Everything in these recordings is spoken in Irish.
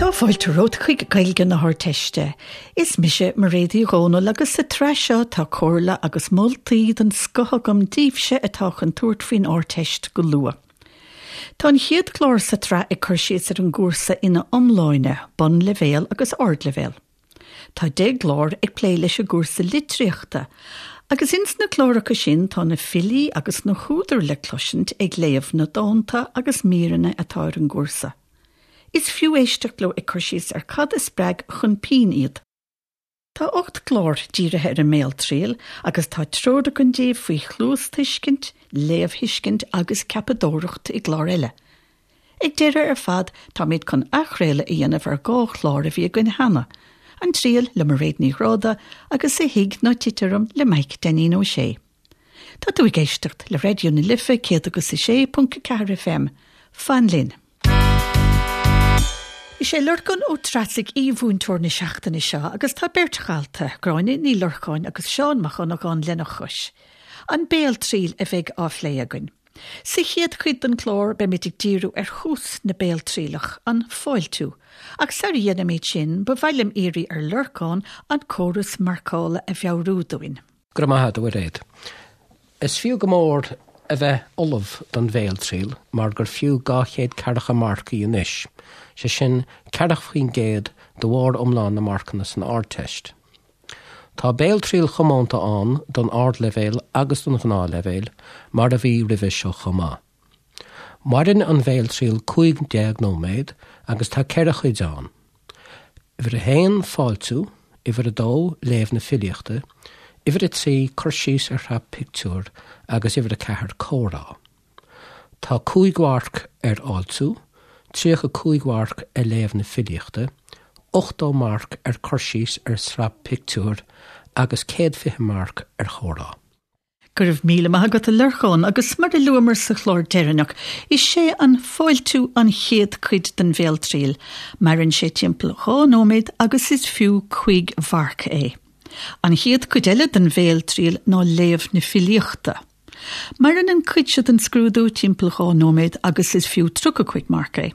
Tá fáilte romhat chuig Gaeilge na hArdteiste. Is mise Mairéad Uí Dhomhnaill agus sa tsraith seo tá comhairle agus moltaí den scoth agam daoibhse atá chun tabhairt faoin Ardteist go luath. Tá an chéad chlár sa tsraith ag cur síos ar an gcúrsa ina iomláine, bunleibhéal agus ardleibhéal. Tá 10 gclár ag plé leis an gcúrsa litríochta, agus ins na cláracha sin tá na filí agus na húdair le cloisint ag léamh na dánta agus míreanna atá ar an gcúrsa. Is fiú éisteacht leo ag cur síos ar cad a spreag chun pinn iad. Tá 8 gclár dírithe ar an mbéaltriail agus tá treoir againn daoibh faoi chluastuiscint, léamhthuiscint agus ceapadóireacht i gclár eile. Ag deireadh ar fad, táimid chun athchraoladh a dhéanamh ar 2 chlár a bhí againn cheana, An Triail le Mairéad Ní Ghráda agus A Thig Ná Tit Orm le Maidhc Dainín Ó Sé. Tá tú ag éisteacht le Raidió na Life 106.4 FM. Fan linn! Is é Lorcán Ó Treasaigh aoi-mhúinteoir na seachtaine seo agus tá beirt dhalta, Gráinne Ní Lorcáin agus Seán Mac Dhonnagáin lena chois. An béaltriail a bheidh á phlé againn. Sa chéad chuid den chlár beimid ag díriú ar thús na béaltrialach, an fáiltiú. Ach sara dhéanaimid sin, ba mhaith liom iarraidh ar Lorcán an córas marcála a mheabhrú dúinn. Go raibh maith agat, a Mhairéad. Is fiú go mór a bheith ullamh don bhéaltriail mar gur fiú 240 marc í anois, sé sin 40% de bharr iomlán na marcanna san Ardteist. Tá béaltriail chomónta ann don ardleibhéal agus don ghnáthleibhéal, mar a bhí roimhe seo chomh maith. Maireann an bhéaltriail 15 nóiméad agus tá 4 chuid ann. Uimhir a haon, fáiltiú, uimhir a dó, léamh na filíochta, uimhir a trí, cur síos ar shraith pictiúr agus uimhir a ceathair, comhrá. Tá 5 mharc ar fháiltiú, 35 mharc ar léamh na filíochta, 80 marc ar cur síos ar shraith pictiúr agus 120 marc ar chomhrá. Go raibh míle maith agat a Lorcáin agus mar a luamar sa chlár deireanach, is é an fáiltiú an chéad cuid den bhéaltriail. Maireann sé timpeall 2 nóiméad agus is fiú 5 mharc é. An chéad cuid eile den bhéaltriail ná léamh na filíochta. Maireann an cuid seo den scrúdú timpeall 2 nóiméad agus is fiú 35 marc é.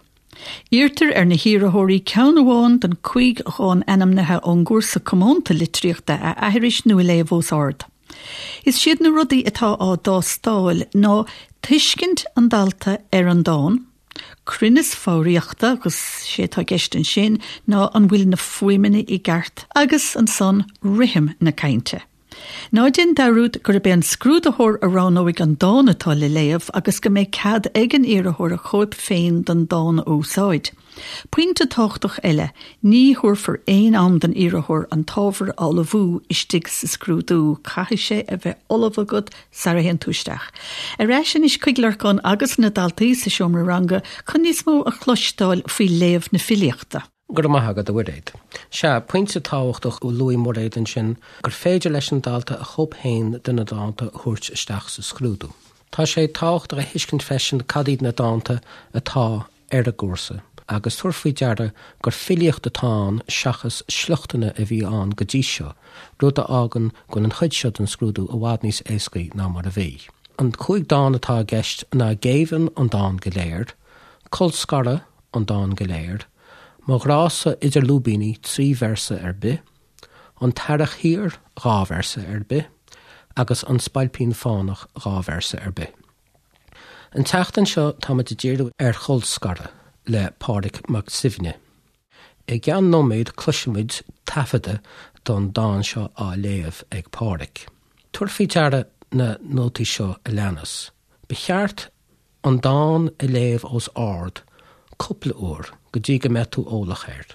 Iarrtar ar na hiarrthóirí ceann amháin den 5 dhán ainmnithe ón gcúrsa comónta litríochta a aithris nó a léamh os ard. Is iad na rudaí atá á dtástáil ná tuiscint an dalta ar an dán, cruinneas foghraíochta agus sé atá i gceist ansin ná an bhfuil na fuaimeanna i gceart agus ansan rithim na cainte. Ná déan dearúd gurb é an scrúdaitheoir a roghnóidh an dán atá le léamh agus go mbeidh cead ag an iarrthóir a chóip féin den dán a úsáid. Pointe tábhachtach eile, ní thabharfar aon am don iarrthóir an t-ábhar a ullmhú istigh sa scrúdú, caithfidh sé a bheith ullamh agat sara théann tú isteach. Ar ais anois chuig Lorcán agus na daltaí sa seomra ranga chun níos mó a chloisteáil faoi léamh na filíochta. Go raibh maith agat, a Mhairéad. Sea, pointe tábhachtach a luaigh Mairéad ansin, gur féidir leis an dalta a chóip féin de na dánta a thabhairt isteach sa scrúdú. Tá sé tábhachtach a thuiscint freisin cad iad na dánta atá ar an gcúrsa, agus tabhair faoi deara gur filíocht atá ann seachas sliochtanna a bhí ann go dtí seo, rud a fhágann go bhfuil an chuid seo den scrúdú i bhfad níos éascaí ná mar a bhí. An 5 dán atá i gceist ná Géibheann, an dán go léir, Colscaradh, an dán go léir, Mo ghrá-sa idir lúibíní, 3 véarsa ar bith, An tEarrach Thiar, 2 véarsa ar bith, agus An Spailpín Fánach, 2 véarsa ar bith. An tseachtain seo táimid ag díriú ar Cholscaradh le Pádraig Mac Suibhne. I gceann nóiméad cloisfimid taifeadadh don dán seo á léamh ag Pádraig. Tabhair faoi deara na nótaí seo a leanas. Ba cheart an dán a léamh os ard cúpla uair go dtí go mbeidh tú eolach air.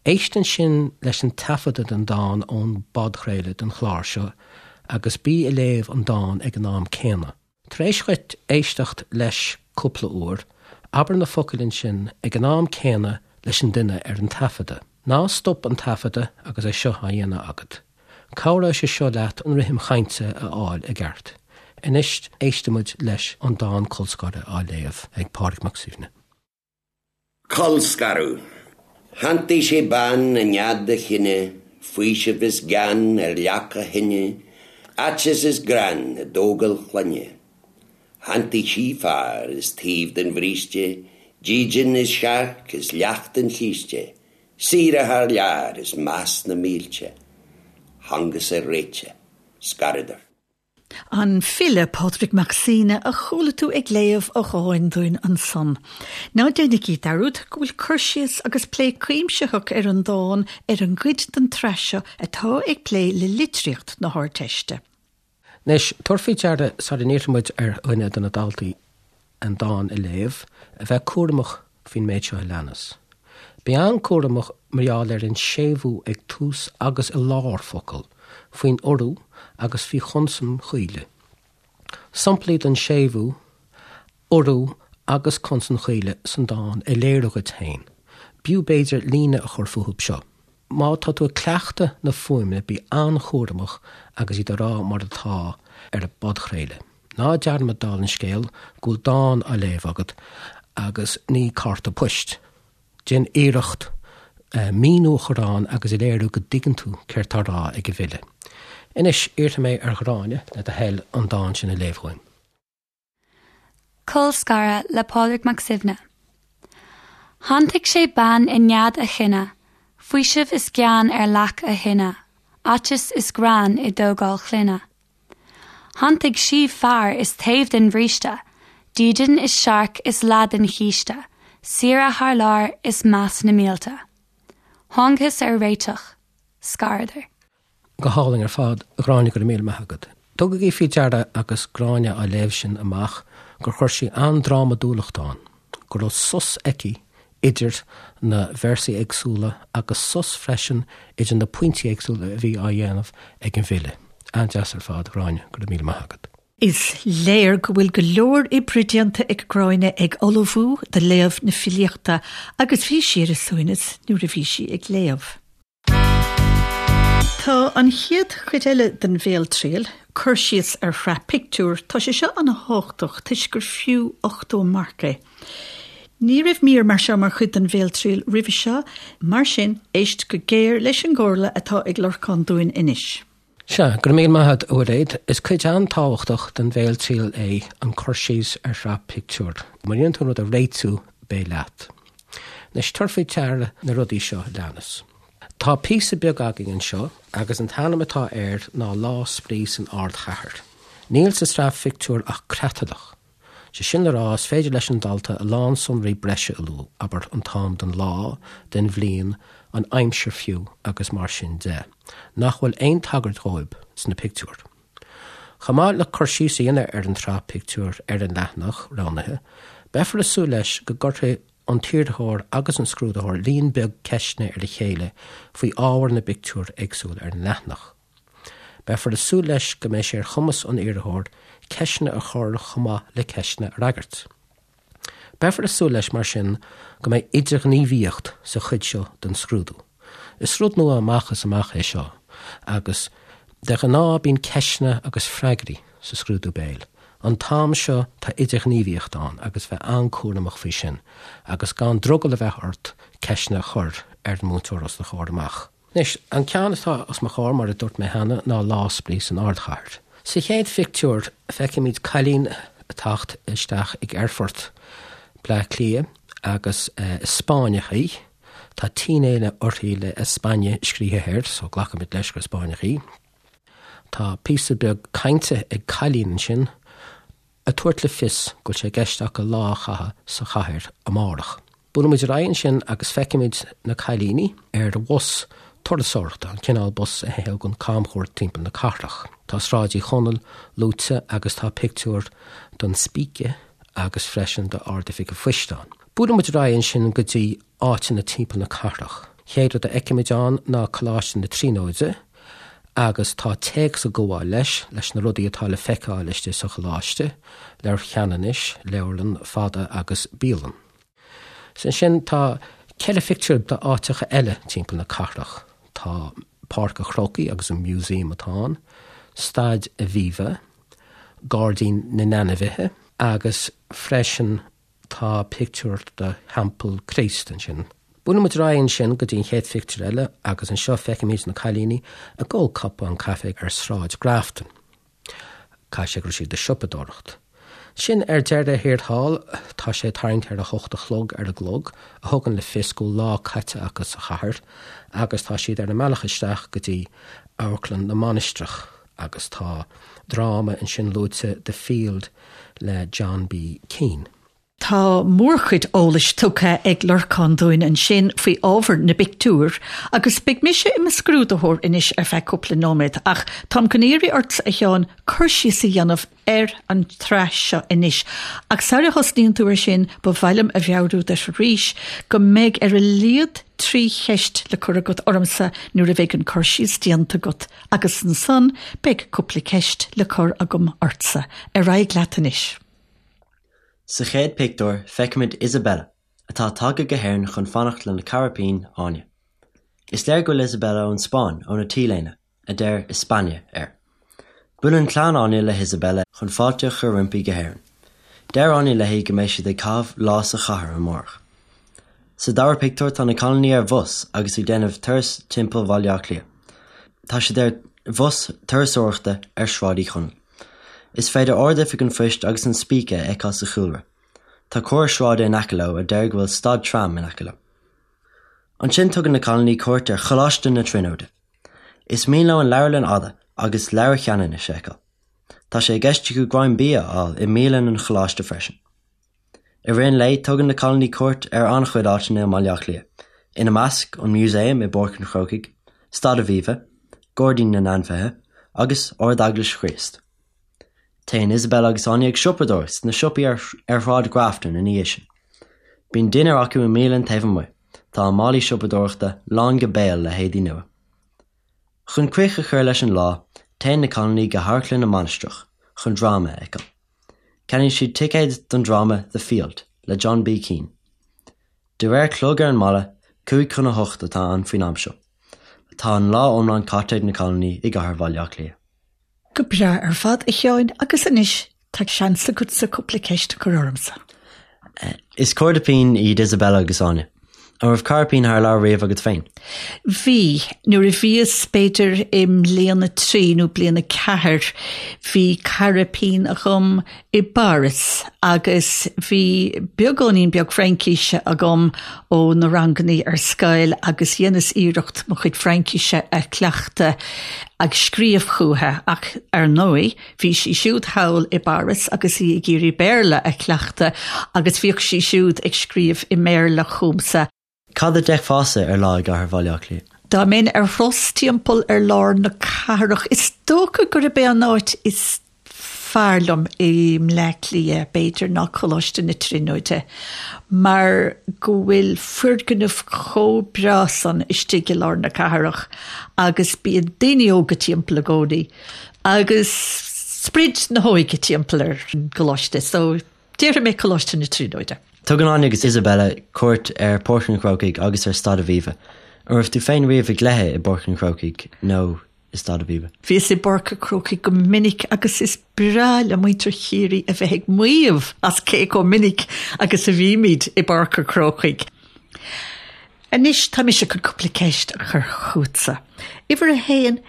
Éist ansin leis an taifeadadh den dán ón bpodchraoladh den chlár seo agus bí ag léamh an dán ag an am céanna. Tar éis dhuit éisteacht leis cúpla uair, abair na focail ansin ag an am céanna leis an duine ar an taifeadadh. Ná stop an taifeadadh agus é seo á dhéanamh agat. Cabhróidh sé seo leat an rithim chainte a fháil i gceart. Anois éistfimid leis an dán Colscaradh á léamh ag Pádraig Mac Suibhne. Colscaradh. Shantaigh sé bean i nead a chine, faoiseamh is gean ar leac a thine, aiteas is greann i dtógáil chlainne. Shantaigh sí fear is taobh den bhríste. Dídean is searc is leac don chíste, saoire thar lear is meas na mílte. Thángthas ar réiteach. Scaradar. An file Pádraig Mac Suibhne a chuala tú ag léamh a dháin dúinn ansan. Ná déanaigí dearúd go bhfuil cur síos agus plé cuimsitheach ar an dán ar an gcuid den tsraith seo atá ag plé le litríocht na hArdteiste. Anois, tabhair faoi deara, sara n-iarrfaidh muid ar dhuine de na daltaí an dán a léamh, a bheith cúramach faoin méid seo a leanas. Bí an-cúramach mar gheall ar an séimhiú ag tús agus i lár focal, faoin urú agus faoi chonsain chaoile. Samplaí den séimhiú, urú agus consain chaoile san dán a léiriú dhuit féin. B'fhiú b'fhéidir líne a chur fúthu seo. Má tá tú ag cleachtadh na fuaimeanna bí an-chúramach agus iad a rá mar atá ar an bpodchraoladh. Ná dearmad dála an scéil go bhfuil dán á léamh agat agus ní cárta poist. Déan iarracht míniú a chur ann agus a léiriú go dtuigeann tú céard tá á rá ag an bhfile. Anois, iarrfaidh mé ar Ghráinne, le do thoil, an dán sin a léamh dhúinn. Colscaradh le Pádraig Mac Suibhne. Shantaigh sé bean i nead a chine, faoiseamh is gean ar leac a thine, aiteas is greann i dtógáil clainne. Shantaigh sí fear is taobh den bhríste, dídean is searc is leath den chíste, saoire thar lear is meas na mílte. Thángthas ar réiteach. Scaradar. Go hálainn ar fad, a Ghráinne, go raibh míle maith agat. Tugaigí faoi deara agus Gráinne á léamh sin amach gur chuir sí an-drámadúlacht ann, go raibh sos aici idir na véarsaí éagsúla agus sos freisin idir na pointí éagsúla a bhí á dhéanamh ag an bhfile. An-deas ar fad, a Ghráinne, go raibh míle maith agat. Is léir go bhfuil go leor oibre déanta ag Gráinne ag ullmhú do léamh na filíochta agus bhí sí ar a suaimhneas nuair a bhí sí ag léamh. Tá an chéad chuid eile den bhéaltriail, cur síos ar shraith pictiúr, tá sé seo an-thábhachtach toisc gur fiú 80 marc é. Ní raibh mír mar seo mar chuid den bhéaltriail roimhe seo, mar sin éist go géar leis an gcomhairle atá ag Lorcán dúinn anois. Sea, go raibh míle maith agat, a Mhairéad. Is cuid an-tábhachtach den bhéaltriail é an cur síos ar shraith pictiúr. Má dhéanann tú an rud a réitiú, beidh leat. Anois, tabhair faoi deara na rudaí seo a leanas. Tá píosa beag againn anseo agus an t-ainm atá air ná Lá Spraoi san Ardchathair. Níl sa tsraith phictiúr ach creatlach. Sé sin le rá, is féidir leis an dalta a lán sonraí breise a lua, abair, an t-am den lá, den bhliain, an aimsir fiú agus mar sin de, nach bhfuil aon tagairt dhóibh sna pictiúir. Chomh maith le cur síos a dhéanamh ar an tsraith pictiúr ar an leathanach roghnaithe, beifear ag súil leis go gcuirfidh an t-iarrthóir agus an scrúdaitheoir líon beag ceisteanna ar a chéile faoi ábhar na bpictiúr éagsúil ar an leathanach. Beifear ag súil leis go mbeidh sé ar chumas an iarrthóir ceisteanna a chur chomh maith le ceisteanna a fhreagairt. Beifear ag súil leis, mar sin, go mbeidh idirghníomhaíocht sa chuid seo den scrúdú. Is rud nua amach is amach é seo agus de ghnáth bíonn ceisteanna agus freagraí sa scrúdú béil. An t-am seo tá idirghníomhaíocht ann agus bheith an-cúramach faoi sin agus gan drogall a bheith ort ceisteanna a chur ar an múinteoir os do chomhair amach. Anois, an ceann atá os mo chomhair, mar a dúirt mé cheana, ná Lá Spraoi san Ardchathair. Sa chéad phictiúr, feicimid cailín ag teacht isteach ag aerfort Bleá Cliath agus is Spáinneach í. Tá t-léine uirthi le España scríofa air, so glacaimid leis gur Spáinneach í. Tá píosa beag cainte ag cailín ansin. ag tabhairt le fios go bhfuil sé i gceist acu lá a chaitheamh sa chathair amárach. Buailimid ar aghaidh ansin agus feicimid na cailíní ar bhus turasóireachta, an cineál bus a thugann camchuairt timpeall na cathrach. Tá Sráid Uí Chonaill luaite agus tá pictiúr den Spíce agus freisin d'Ard-Oifig an Phoist ann. Buailimid ar aghaidh ansin go dtí áiteanna timpeall na cathrach. Chéad rud a fheicimid ann ná Coláiste na Tríonóide agus tá téacs ag gabháil leis, leis na rudaí atá le feiceáil istigh sa choláiste, Leabhar Cheanannais, leabharlann fada agus bialann. Is ansin tá ceithre phictiúr d'áiteacha eile timpeall na cathrach. Tá Páirc an Chrócaigh agus an museum atá ann, Staid Aviva, Gairdín na nAinmhithe agus freisin Tá pictiúr de Theampall Chríost ansin. Buaileann muid ar aghaidh ansin go dtí an chéad phictiúr eile agus anseo feicimid na cailíní ag ól cupán caife ar Sráid Grafton. Caithfidh sé go raibh siad ag siopadóireacht. Sin ar deireadh thiar thall, tá sé tarraingt ar a hocht a chlog ar an gclog, a thugann le fios go bhfuil lá caite acu sa chathair, agus tá siad ar a mbealach isteach go dtí Amharclann na Mainistreach, agus tá dráma ansin luaite, The Field le John B. Keane. Tá mórchuid eolais tugtha ag Lorcán dúinn ansin faoi ábhar na bpictiúr agus beidh mise i mo scrúdaitheoir anois ar feadh cúpla nóiméad ach táim chun iarraidh ortsa a Sheáin cur síos a dhéanamh ar an tsraith seo anois ach sara thosnaíonn tú ar sin ba mhaith liom a mheabhrú duit arís go mbeidh ar a laghad 3 cheist le cur agat ormsa nuair a bheidh an cur síos déanta agat agus ansan beidh cúpla ceist le cur agam ortsa. Ar aghaidh leat anois. Sa chéad pictiúr, feicimid Isabella, atá tagtha go hÉirinn chun fanacht lena cara pinn, Áine. Is léir go bhfuil Isabella ón Spáinn óna T-léine, a deir España air. Buaileann clann Áine le hIsabella chun fáilte a chur roimpi go hÉirinn. Deir Áine léi go mbeidh siad ag caitheamh lá sa chathair amárach. Sa dara pictiúr tá na cailíní ar bhus agus ag déanamh turas timpeall Bhaile Átha Cliath. Tá siad ar bhus turasóireachta ar Sráid Uí Chonaill. Is féidir Ard-Oifig an Phoist agus an Spíce a fheiceáil sa chúlra. Tá comhartha sráide in aice leo a deir go bhfuil stad tram in aice leo. Ansin tugann na cailíní cuairt ar Choláiste na Tríonóide. Is mian leo an Leabharlann Fhada agus Leabhar Cheanannais a fheiceáil. Tá sé i gceist acu greim bia a fháil i mbialann an choláiste freisin. I rith an lae, tugann na cailíní cuairt ar an-chuid áiteanna i mBaile Átha Cliath, ina measc, an Músaem i bPáirc an Chrócaigh, Staid Aviva, Gairdín na nAinmhithe, agus Ard-Eaglais Chríost. Téann Isabella agus Áine ag siopadóireacht sna siopaí ar Shráid Grafton ina dhiaidh sin. Bíonn dinnéar acu i mbialann taobh amuigh, tá a málaí siopadóireachta lán go béal le héadaí nua. Chun críoch a chur leis an lá, téann na cailíní go hAmharclann na Mainistreach chun dráma a fheiceáil. Ceannaíonn siad ticéad don dráma The Field le John B. Keane. De réir clog ar an mballa, 7:55 atá ann faoin am seo. Tá an lá iomlán caite ag na cailíní i gcathair Bhaile Átha Cliath. Go breá ar fad, a Sheáin, agus anois tá seans agatsa cúpla ceist a chur ormsa. Is cairde pinn iad Isabella agus Áine. An raibh cara pinn thar lear riamh agat féin? Bhí. Nuair a bhíos, b'fhéidir, i mbliain a trí nó bliain a ceathair, bhí cara pinn agam i bPáras agus bhí beagáinín beag Fraincíse agam ó na rangannaí ar scoil agus dheineas iarracht mo chuid Fraincíse a chleachtadh ag scríobh chúithi ach ar ndóigh Bhí sí siúd thall i bPáras agus í ag iarraidh Béarla a chleachtadh agus bhíodh sí siúd ag scríobh i mBéarla chugamsa. Cad a d'fheicfeása ar lá i gcathair Bhaile Átha Cliath? Dá mbeinn ar thuras timpeall ar lár na cathrach, is dócha gurb é an áit is fearr liom i mBleá Cliath, b'fhéidir, ná Coláiste na Tríonóide, mar go bhfuil foirgneamh chomh breá san istigh i lár na cathrach agus bíonn daoine óga timpeall i gcónaí. Agus sprid na hóige timpeall ar an gcoláiste, so déarfaidh mé Coláiste na Tríonóide. Tugann Áine agus Isabella cuairt ar Pháirc an Chrócaigh agus ar Staid Aviva. An raibh tú féin riamh ag cluiche i bPáirc an Chrócaigh nó i Staid Aviva? Bhíos i bPáirc an Chrócaigh go minic agus is breá le muintir Chiarraí a bheith ag maíomh as cé chomh minic agus a bhímid i bPáirc an Chrócaigh. Anois tá mise chun cúpla ceist a chur chugatsa. Uimhir a haon,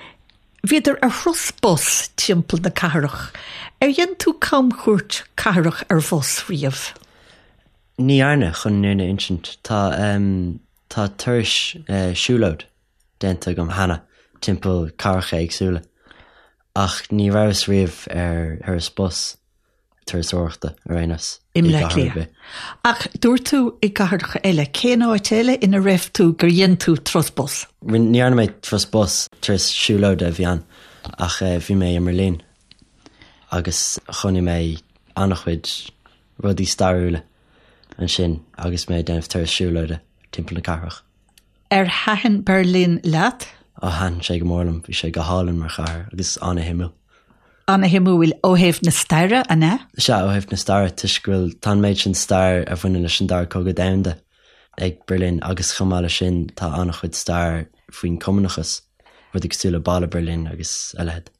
Bhíodar ar thuras bus timpeall na cathrach. Ar dhein tú camchuairt cathrach ar bhus riamh? Ní dhearna, chun an fhírinne a insint. Tá, tá turais siúlóid déanta agam cheana timpeall cathracha éagsúla ach ní rabhas riamh ar thuras bus. turasóireachta ar aon nós i mBleá Cliath. Ach dúirt tú i gcathracha eile, cén áit eile ina raibh tú gur dhein tú turas bus? Ní dhearna mé turas bus, turas siúlóide a bhí ann, ach bhí mé i mBerlin agus chonaic mé an-chuid rudaí stairiúla ansin agus mé ag déanamh turas siúlóide timpeall na cathrach. Ar thaitin Berlin leat? Ó, thaitin sé go mór liom. Bhí sé go hálainn mar chathair agus ana-shuimiúil. Ana-shuimiúil ó thaobh na staire, an ea? Sea, ó thaobh na staire, toisc go bhfuil, tá an méid sin stair a bhaineann leis an Dara Cogadh Domhanda ag Berlin agus chomh maith leis sin tá an-chuid stair faoin Cumannachas, rudaí cosúil le Balla Berlin agus a leithéid.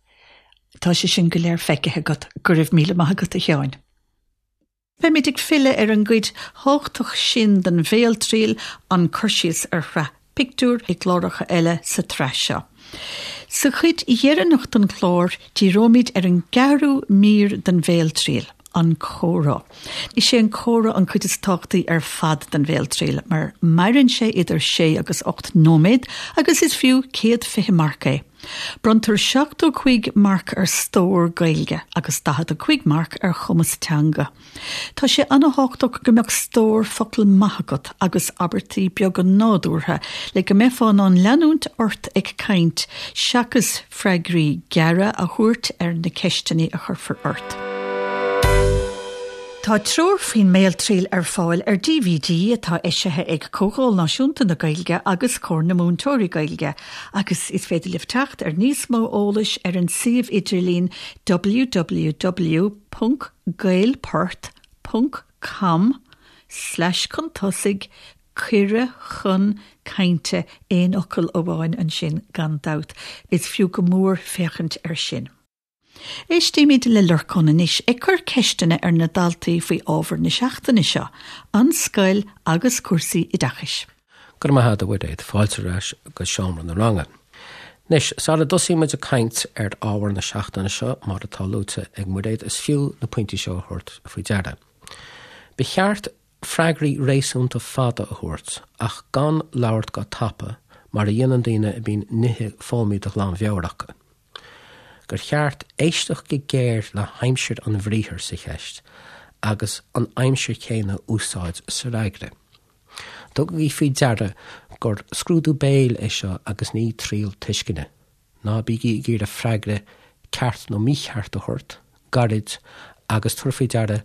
Tá sé sin go léir feicthe agat. Go raibh míle maith agat, a Sheáin. Beimid ag filleadh ar an gcuid thábhachtach sin den bhéaltriail, an cur síos ar shraith pictiúr, i gcláracha eile sa tsraith seo. Sa chuid dheireanach den chlár, díreoimid ar an gceathrú mír den bhéaltriail, an comhrá. Is é an comhrá an cuid is tábhachtaí ar fad den bhéaltriail, mar maireann sé idir sé agus 8 nóiméad agus is fiú 120 marc é. Bronntar 75 marc ar stór Gaeilge agus 45 marc ar chumas teanga. Tá sé an-tábhachtach go mbeadh stór focal maith agat agus abairtí beaga nádúrtha le go mbeifeá in ann leanúint ort ag caint seachas freagraí gearra a thabhairt ar na ceisteanna a chuirfear ort. Tá treoir faoin mBéaltriail ar fáil ar DVD atá eisithe ag Comhdháil Náisiúnta na Gaeilge agus Comhar na Múinteoirí Gaeilge agus is féidir libh teacht ar níos mó eolais ar an suíomh idirlín www. gaelport ponc com slash chun tosaigh cuireadh chun cainte aon fhocal amháin ansin gan dabht. Is fiú go mór féachaint air sin. Éistímid le Lorcán anois ag cur ceisteanna ar na daltaí faoi ábhar na seachtaine seo, an scoil agus cúrsaí oideachais. Go raibh maith agat, a Mhuiréad. Fáilte ar ais go seomra na ranga. Anois, sara dtosaíonn muid ag caint ar ábhar na seachtaine seo, mar atá luaite ag Muiréad, is fiú na pointí seo a thabhairt faoi deara. Ba cheart freagraí réasúnta fada a thabhairt, ach gan labhairt go tapa, mar a dhéanann daoine a bíonn nithe foghlamtha de ghlanmheabhair acu. Gur cheart éisteacht go géar le haimsir an bhriathair sa cheist agus an aimsir chéanna a úsáid sa fhreagra. Tugaigí faoi deara gur scrúdú béil é seo agus ní triail tuisceana. Ná bígí ag iarraidh freagra ceart nó mícheart a thabhairt, gairid, agus tabhair faoi deara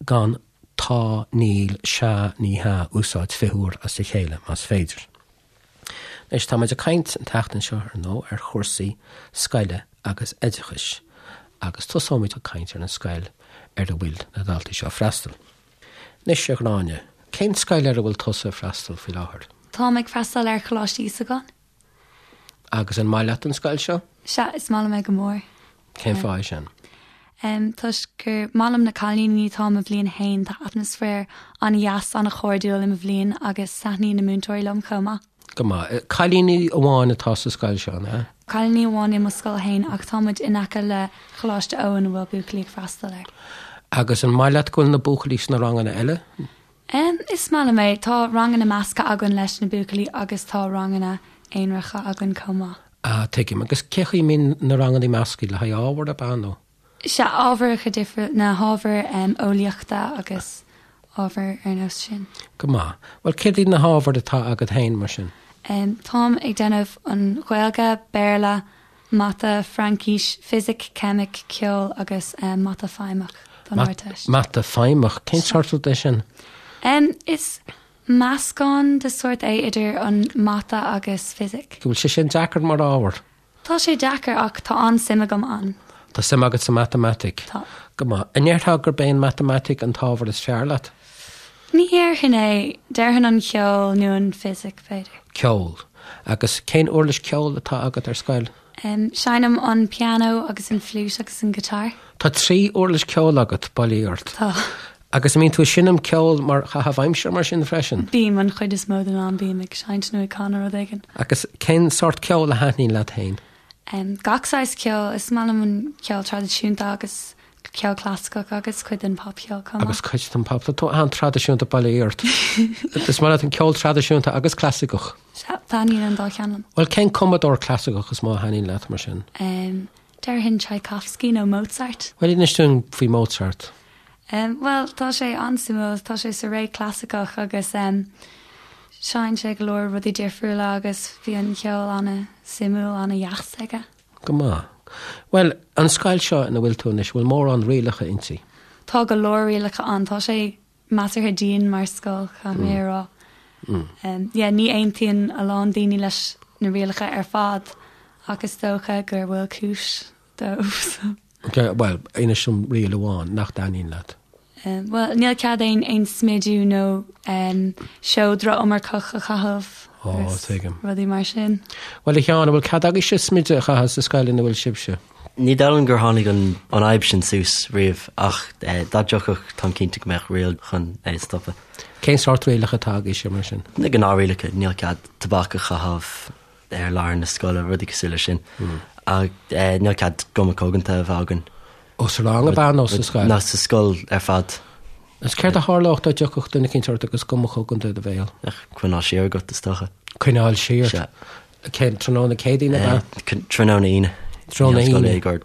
gan tá, níl, sea, ní hea a úsáid 20 uair as a chéile, más féidir. Anois, tá muid ag caint an tseachtain seo, ar ndóigh, ar chúrsaí scoile agus oideachais, agus tosóimid ag caint ar an scoil ar a bhfuil na daltaí seo ag freastal. Anois, a Ghráinne, cén scoil ar a bhfuil tusa ag freastal faoi láthair? Táim ag freastal ar Choláiste Íosagáin. Agus an maith leat an scoil seo? Sea, is maith liom é go mór. Cén fáth é sin? Toisc gur maith liom na cailíní, táim i mbliain a haon, tá atmaisféar an-dheas, an-chairdiúil i mo bhliain agus taitníonn na múinteoirí liom chomh maith. Go maith. Cailíní amháin atá sa scoil seo, an ea? Cailíní amháin i mo scoil fhéin ach tá muid in aice le Choláiste Eoin a bhfuil buachaillí ag freastal air. Agus an maith leat go bhfuil na buachaillí sna ranganna eile? Is maith liom é. Tá ranganna measctha againn leis na buachaillí agus tá ranganna aonaracha againn chomh maith. Ah, tuigim. Agus cé chaoi a mbíonn na ranganna measctha? Le haghaidh ábhar, ab ea, nó? Sea, ábharacha difriúla, na hábhair eolaíochta agus ábhair ar nós sin. Go maith. Bhuel, céard iad na hábhair atá agat féin, mar sin? Táim ag déanamh an Ghaeilge, Béarla, Mata, Fraincis, Fisic, Ceimic, Ceol agus Mata Feidhmeach don Ardteist. Mata Feidhmeach? Cén sórt rud é sin? Is meascán de sórt é idir an Mata agus Fisic. Bhfuil sé sin deacair mar ábhar? Tá sé deacair ach tá an-suim agam ann. Tá suim agat sa matamaitic? Tá. Go maith. An ndéarfá gurb é an matamaitic an t-ábhar is fearr leat? Ní dhéarfainn é. Déarfainn an ceol nó an fisic, b'fhéidir. Ceol. Agus cén uirlis ceoil atá agat ar scoil? Seinnim an pianó agus an fliúit agus an guitar. Tá 3 uirlis ceoil agat, bail ó Dhia ort. Tá. Agus an mbíonn tú ag seinm ceoil mar chaitheamh aimsire mar sin freisin? Bím, an chuid is mó den am bím ag seinnt nó ag canadh rud éigin. Agus cén sórt ceoil a thaitníonn leat féin? Gach saghas ceoil, is maith liom an ceol traidisiúnta agus ceol clasaiceach agus cuid den popcheol chomh maith. Agus cuid den pop, tá tú an-traidisiúnta bail ó Dhia ort. Is maith leat an ceol traidisiúnta agus clasaiceach? Sea, taitníonn an dá cheann liom. Bhuel, cén cumadóir clasaiceach is mó a thaitníonn leat mar sin? Déarfainn Tchaikovsky nó Mozart. Bhuel, inis dúinn faoi Mozart. Bhuel, tá sé an-suimiúil. Tá sé sa ré clasaiceach agus sheinn sé go leor rudaí difriúla agus bhí an ceol an-suimiúil, an-dheas aige. Go maith. Bhuel, an scoil seo ina bhfuil tú anois, bhfuil mórán rialacha inti? Tá go leor rialacha ann. Tá sé measartha dian mar scoil, caithfidh mé a rá. Yeah, ní aontaíonn a lán daoine leis na rialacha ar fad ach is dócha gur bhfuil cúis dóibh so. Ok, bhuel, inis dom riail amháin nach dtaitníonn leat. Bhuel, níl cead aon aon smidiú nó seodra iomarcach a chaitheamh agus tuigim. rudaí mar sin. Bhuel, a Sheáin, an bhfuil cead agaibhse smideadh a chaitheamh sa scoil ina bhfuil sibhse? Ní dóigh liom gur tháinig an fhadhb sin suas riamh ach dá dtiocfadh táim cinnte go mbeadh riail chun é a stopadh. Cén sórt rialacha atá agaibhse mar sin? Na gnáthrialacha, níl cead tobac a chaitheamh ar láthair na scoile, rudaí cosúil leis sin. Ach níl cead guma coganta a bheith againn. Ó sa rang ab ea nó sa scoil? Nó sa scoil ar fad. Agus céard a tharlódh dá dtiocfadh duine eicínt ort agus guma chogaint i do bhéal? Coinneáil siar agat, is dócha. Coinneáil siar? Sea. Cén, tráthnóna Céadaoine ab ea? Tráthnóna Aoine. Tráthnóna Aoine. Ag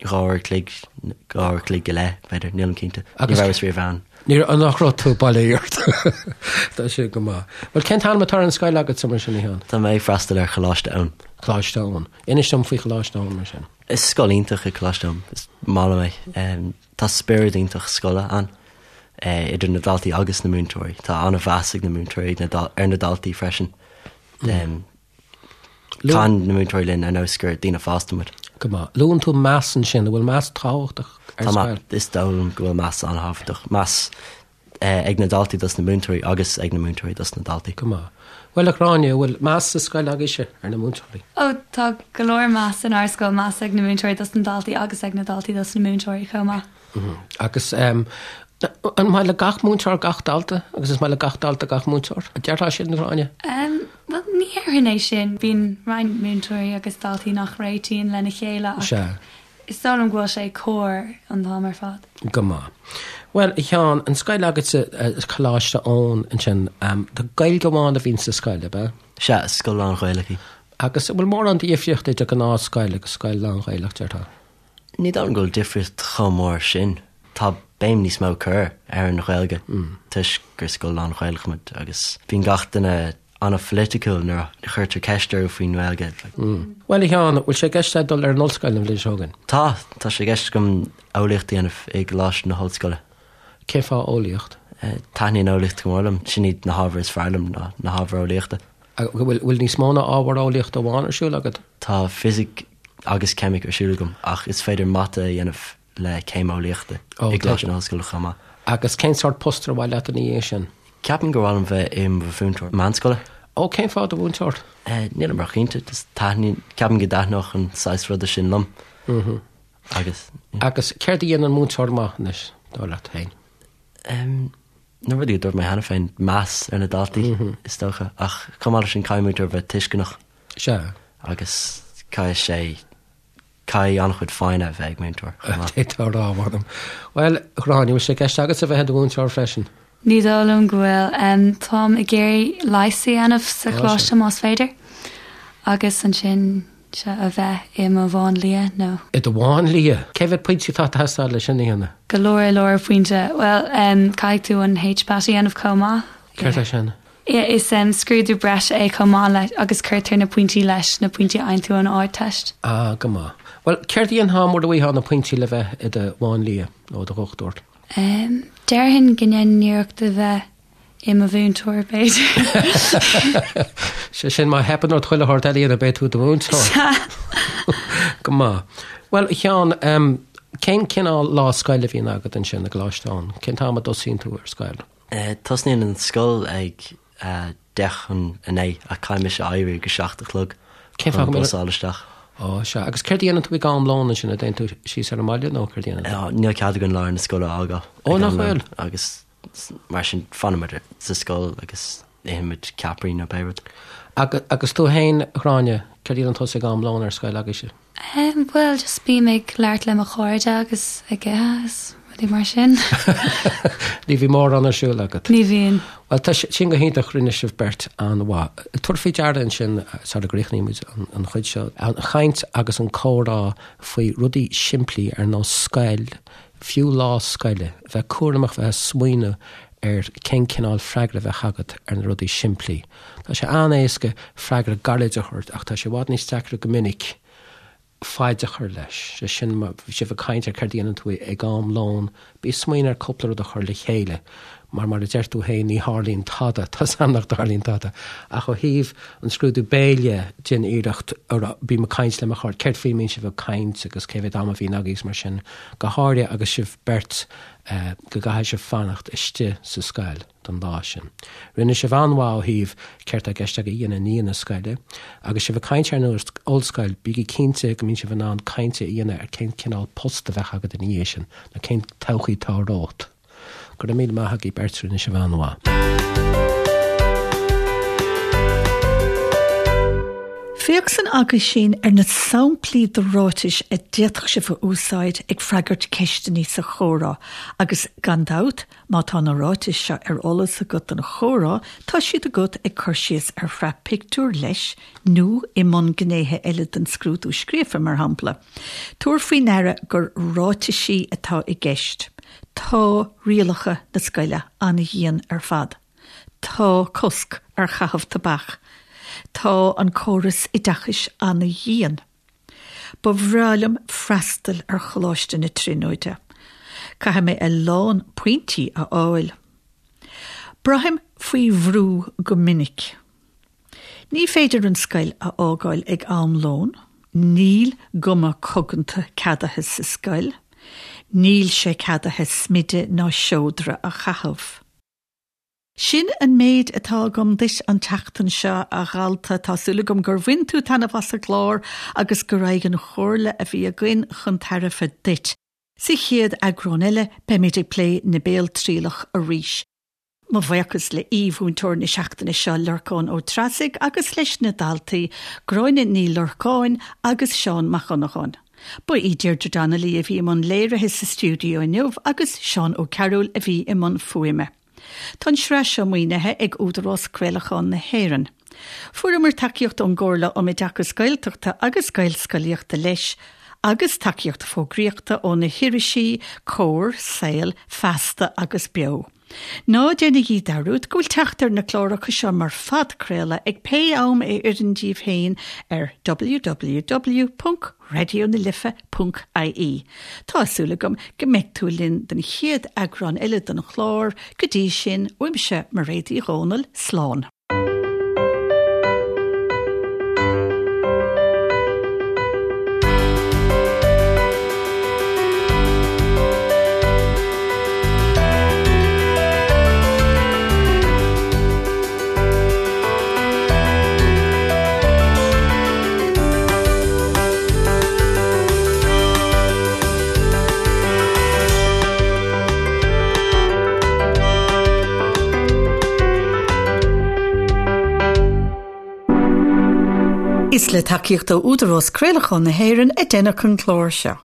2 uair a chloig, 2 uair a chloig go leith, b'fhéidir, nílim cinnte. Ní rabhas riamh ann. Ní raibh, nach raibh tú bail ort. Tá sé go maith. Bhuel, cén t-ainm atá ar an scoil agatsa mar sin, a Sheáin? Tá mé ag freastal ar Choláiste Eoin. Coláiste Eoin. Inis dom faoi Choláiste Eoin mar sin. Is scoil iontach é Coláiste Eoin. Is maith liom é. Tá spiorad iontach scoile ann, idir na daltaí agus na múinteoirí. Tá an-mheas ag na múinteoirí ar na daltaí freisin. Caitheann na múinteoirí linn ar nós gur daoine fásta muid. Go maith. Luann tú meas ansin. An bhfuil meas tábhachtach ar scoil? Is dóigh liom go bhfuil meas an-thábhachtach. Meas ag na daltaí dos na múinteoirí agus ag na múinteoirí dos na daltaí. Go maith. Bhuel, a Ghráinne, an bhfuil meas sa scoil agaibhse ar na múinteoirí? Ó, tá go leor meas inár scoil, meas ag na múinteoirí dos na daltaí agus ag na daltaí dos na múinteoirí chomh maith. Agus an maith le gach múinteoir gach dalta agus is maith le gach dalta gach múinteoir? An déarfá sin, a Ghráinne? Bhuel, ní dhéarfainn é sin. Bíonn roinnt múinteoirí agus daltaí nach réitíonn lena chéile ach is dóigh liom go bhfuil sé cóir an t-am ar fad. Go maith. Bhuel, a Sheáin, an scoil agatsa, Coláiste Eoin ansin, tá Gaeilge amháin a bhíonn sa scoil, ab ea? Sea, is scoil lán-Ghaelach í. Agus an bhfuil mórán difríocht idir gnáthscoil agus scoil lán-Ghaelach, déarfá? Ní dóigh liom go bhfuil difríocht chomh mór sin. Tá béim níos mó curtha ar an Ghaeilge toisc gur scoil lán-Ghaelach muid agus bíonn gach duine an-pholaiticiúil nuair a chuirtear ceist orthu faoin nGaeilge. Bhuel, a Sheáin, bhfuil sé i gceist agat dul ar an ollscoil an bhliain seo chugainn? Tá, tá sé i gceist agam eolaíocht a dhéanamh i gColáiste na hOllscoile. Cén fáth eolaíocht? Taitníonn eolaíocht go mór liom. Sin iad na hábhair is fearr liom, ná na hábhair eolaíochta. Bhfuil níos mó ná ábhar eolaíochta amháin ar siúl agat? Tá fisic agus ceimic ar siúl agam ach is féidir mata a dhéanamh le céim eolaíochta i gColáiste na hOllscoile chomh maith. Agus cén sórt post ar mhaith leat ina dhiaidh sin? Ceapaim gur mhaith liom bheith i mo mhúinteoir meánscoile. Ó, cén fáth do mhúinteoir? Nílim róchinnte, just taitníonn, ceapaim go dtaitneodh an saghas ruda sin liom. Agus. Agus céard a dhéanann múinteoir maith anois, dar leat féin? Na rudaí a dúirt mé cheana féin, meas ar na daltaí, is dócha, ach chomh maith leis sin caithfidh múinteoir bheith tuisceanach. Sea. Agus caithfidh sé, caithfidh an-chuid foighne a bheith ag múinteoir chomh maith. D'fhéadfá a rá, mh'anam. Bhuel, a Ghráinne, an bhfuil sé i gceist agatsa bheith i do mhúinteoir freisin? Ní dóigh liom go bhfuil. Táim ag iarraidh leigheas a dhéanamh sa choláiste más féidir agus ansin Sea, a bheith i mo mháinlia nó. I do mháinlia? Cé mhéad pointe atá ag teastáil leis sin a dhéanamh? Go leor leor pointe. Bhuel, caithfidh tú an HPAT a dhéanamh chomh maith. Céard é sin? Is scrúdú breise é chomh maith le, agus cuirtear na pointí leis na pointí a fhaigheann tú ón Ardteist. Ah, go maith. Bhuel, céard a dhéanfá mura bhfaighfeá na pointí le bheith i do mháinlia nó i do dhochtúir? Déarfainn go ndéanfainn iarracht a bheith i mo mhúinteoir, b'fhéidir. Sé sin, má theipeann ort chuile shórt eile a dhéanamh, beidh tú i do mhúinteoir. Sea. Go maith. Bhuel, a Sheáin, cén cineál lá scoile a bhíonn agat ansin i gColáiste Eoin? Cén t-am a dtosaíonn tú ar scoil? Tosnaíonn an scoil ag 8:50 ach caithfidh mise éirí ag a 7 a chlog Cén fáth chun go an bus a fháil isteach. Ó, sea. Agus céard a dhéanann tú ag am lóin ansin? An dtéann tú síos ar an mbaile nó céard a dhéanann tú? Níl cead againn lár na scoile a fhágáil Ó, ag nach am lóin bhfuil? agus Mar sin, fanaimid sa scoil agus ithimid ceapairí nó pé rud. Agus tú féin, a Ghráinne, céard a dhéanann tusa ag am lóin ar scoil agaibhse? Em, bhuel, just bím ag labhairt le mo chairde agus ag ithe is rudaí mar sin. Ní bhíonn mórán ar siúl agat? Ní bhíonn. Bhuel, tá sin go hiontach, rinne sibh beirt an-mhaith. Tabhair faoi deara ansin, sara gcríochnaímid an chuid seo, an chaint agus an comhrá faoi rudaí simplí ar nós scoil, fiú lá scoile, bheith cúramach bheith ag smaoineamh ar cén cineál freagra a bheadh agat ar na rudaí simplí. Tá sé an-éasca freagra gairid a thabhairt ach tá sé i bhfad níos deacra go minic faid a chur leis. Sé sin, má bhí sibh ag caint ar céard a dhéanann tú ag am lóin, bí ag smaoineamh ar cúpla rud a chur le chéile mar mar a deir tú féin ní tharlaíonn tada, tá's a'm nach dtarlaíonn tada. Ach ó thaobh an scrúdú béil dhe, déan iarracht a rá, bím ag caint le mo chairde, céard faoi a mbíonn sibh ag caint agus cé mhéad am a bhíonn agaibh agus mar sin, go háirithe agus sibh beirt go gcaithfidh sibh fanacht istigh sa scoil don lá sin. Rinne sibh an-mhaith ó thaobh céard tá i gceist agaibh a dhéanamh i ndiaidh na scoile. Agus sibh ag caint ar an ollscoil, bígí cinnte go mbíonn sibh in ann caint a dhéanamh ar cén cineál post a bheadh agat ina dhiaidh sin, nó cén todhchaí atá romhat. Go raibh míle maith agaibh beirt, rinne sibh an-mhaith. Féach san aguisín ar na samplaí de ráitis a d'fhéadfadh sibh a úsáid ag freagairt ceisteanna sa chomhrá agus, gan dabht, má tá na ráitis seo ar eolas agat don chomhrá, tá siad agat ag cur síos ar shraith pictiúr leis nó i mbun gnéithe eile den scrúdú scríofa, mar shampla. Tabhair faoi ndeara gur ráitisí atá i gceist. Tá rialacha na scoile an-dhian ar fad. Tá cosc ar chaitheamh tobac. Tá an córas oideachais an-dhian. Ba bhreá liom freastal ar Choláiste na Tríonóide. Caithfidh mé a lán pointí a fháil. Braithim faoi bhrú go minic. Ní féidir an scoil a fhágáil ag am lóin. Níl guma coganta ceadaithe sa scoil. Níl sé ceadaithe smideadh ná seodra a chaitheamh. Sin an méid atá agam duit an tseachtain seo, a dhalta. Tá súil agam gur bhain tú taitneamh as an gclár agus go raghadh an chomhairle a bhí againn chun tairbhe duit. Sa chéad eagrán eile, beimid ag plé na béaltrialach arís. Mo bhuíochas le aoi-mhúinteoir na seachtaine seo, Lorcán Ó Treasaigh, agus leis na daltaí, Gráinne Ní Lorcáin agus Seán Mac Dhonnagáin. Ba í Deirdre Donnelly a bhí i mbun léirithe sa stiúideo inniu agus Seán Ó Cearúil a bhí i mbun fuaime. Tá an tsraith seo maoinithe ag Údarás Craolacháin na hÉireann. Fuaireamar tacaíocht ón gComhairle um Oideachas Gaeltachta agus Gaelscolaíochta leis, agus tacaíocht fógraíochta ó na hirisí Comhar, Saol, Feasta agus Beo. Ná déanaigí dearúd go bhfuil teacht ar na cláracha seo mar phodchraoladh ag pé am a oireann díbh féin ar www.raidionalife.ie. Tá súil agam go mbeidh tú linn don chéad eagrán eile den chlár, go dtí sin, uaimse Mairéad Uí Dhomhnaill, slán. Is le tacaíocht ó Údarás Craolacháin na hÉireann a deineadh an clár seo.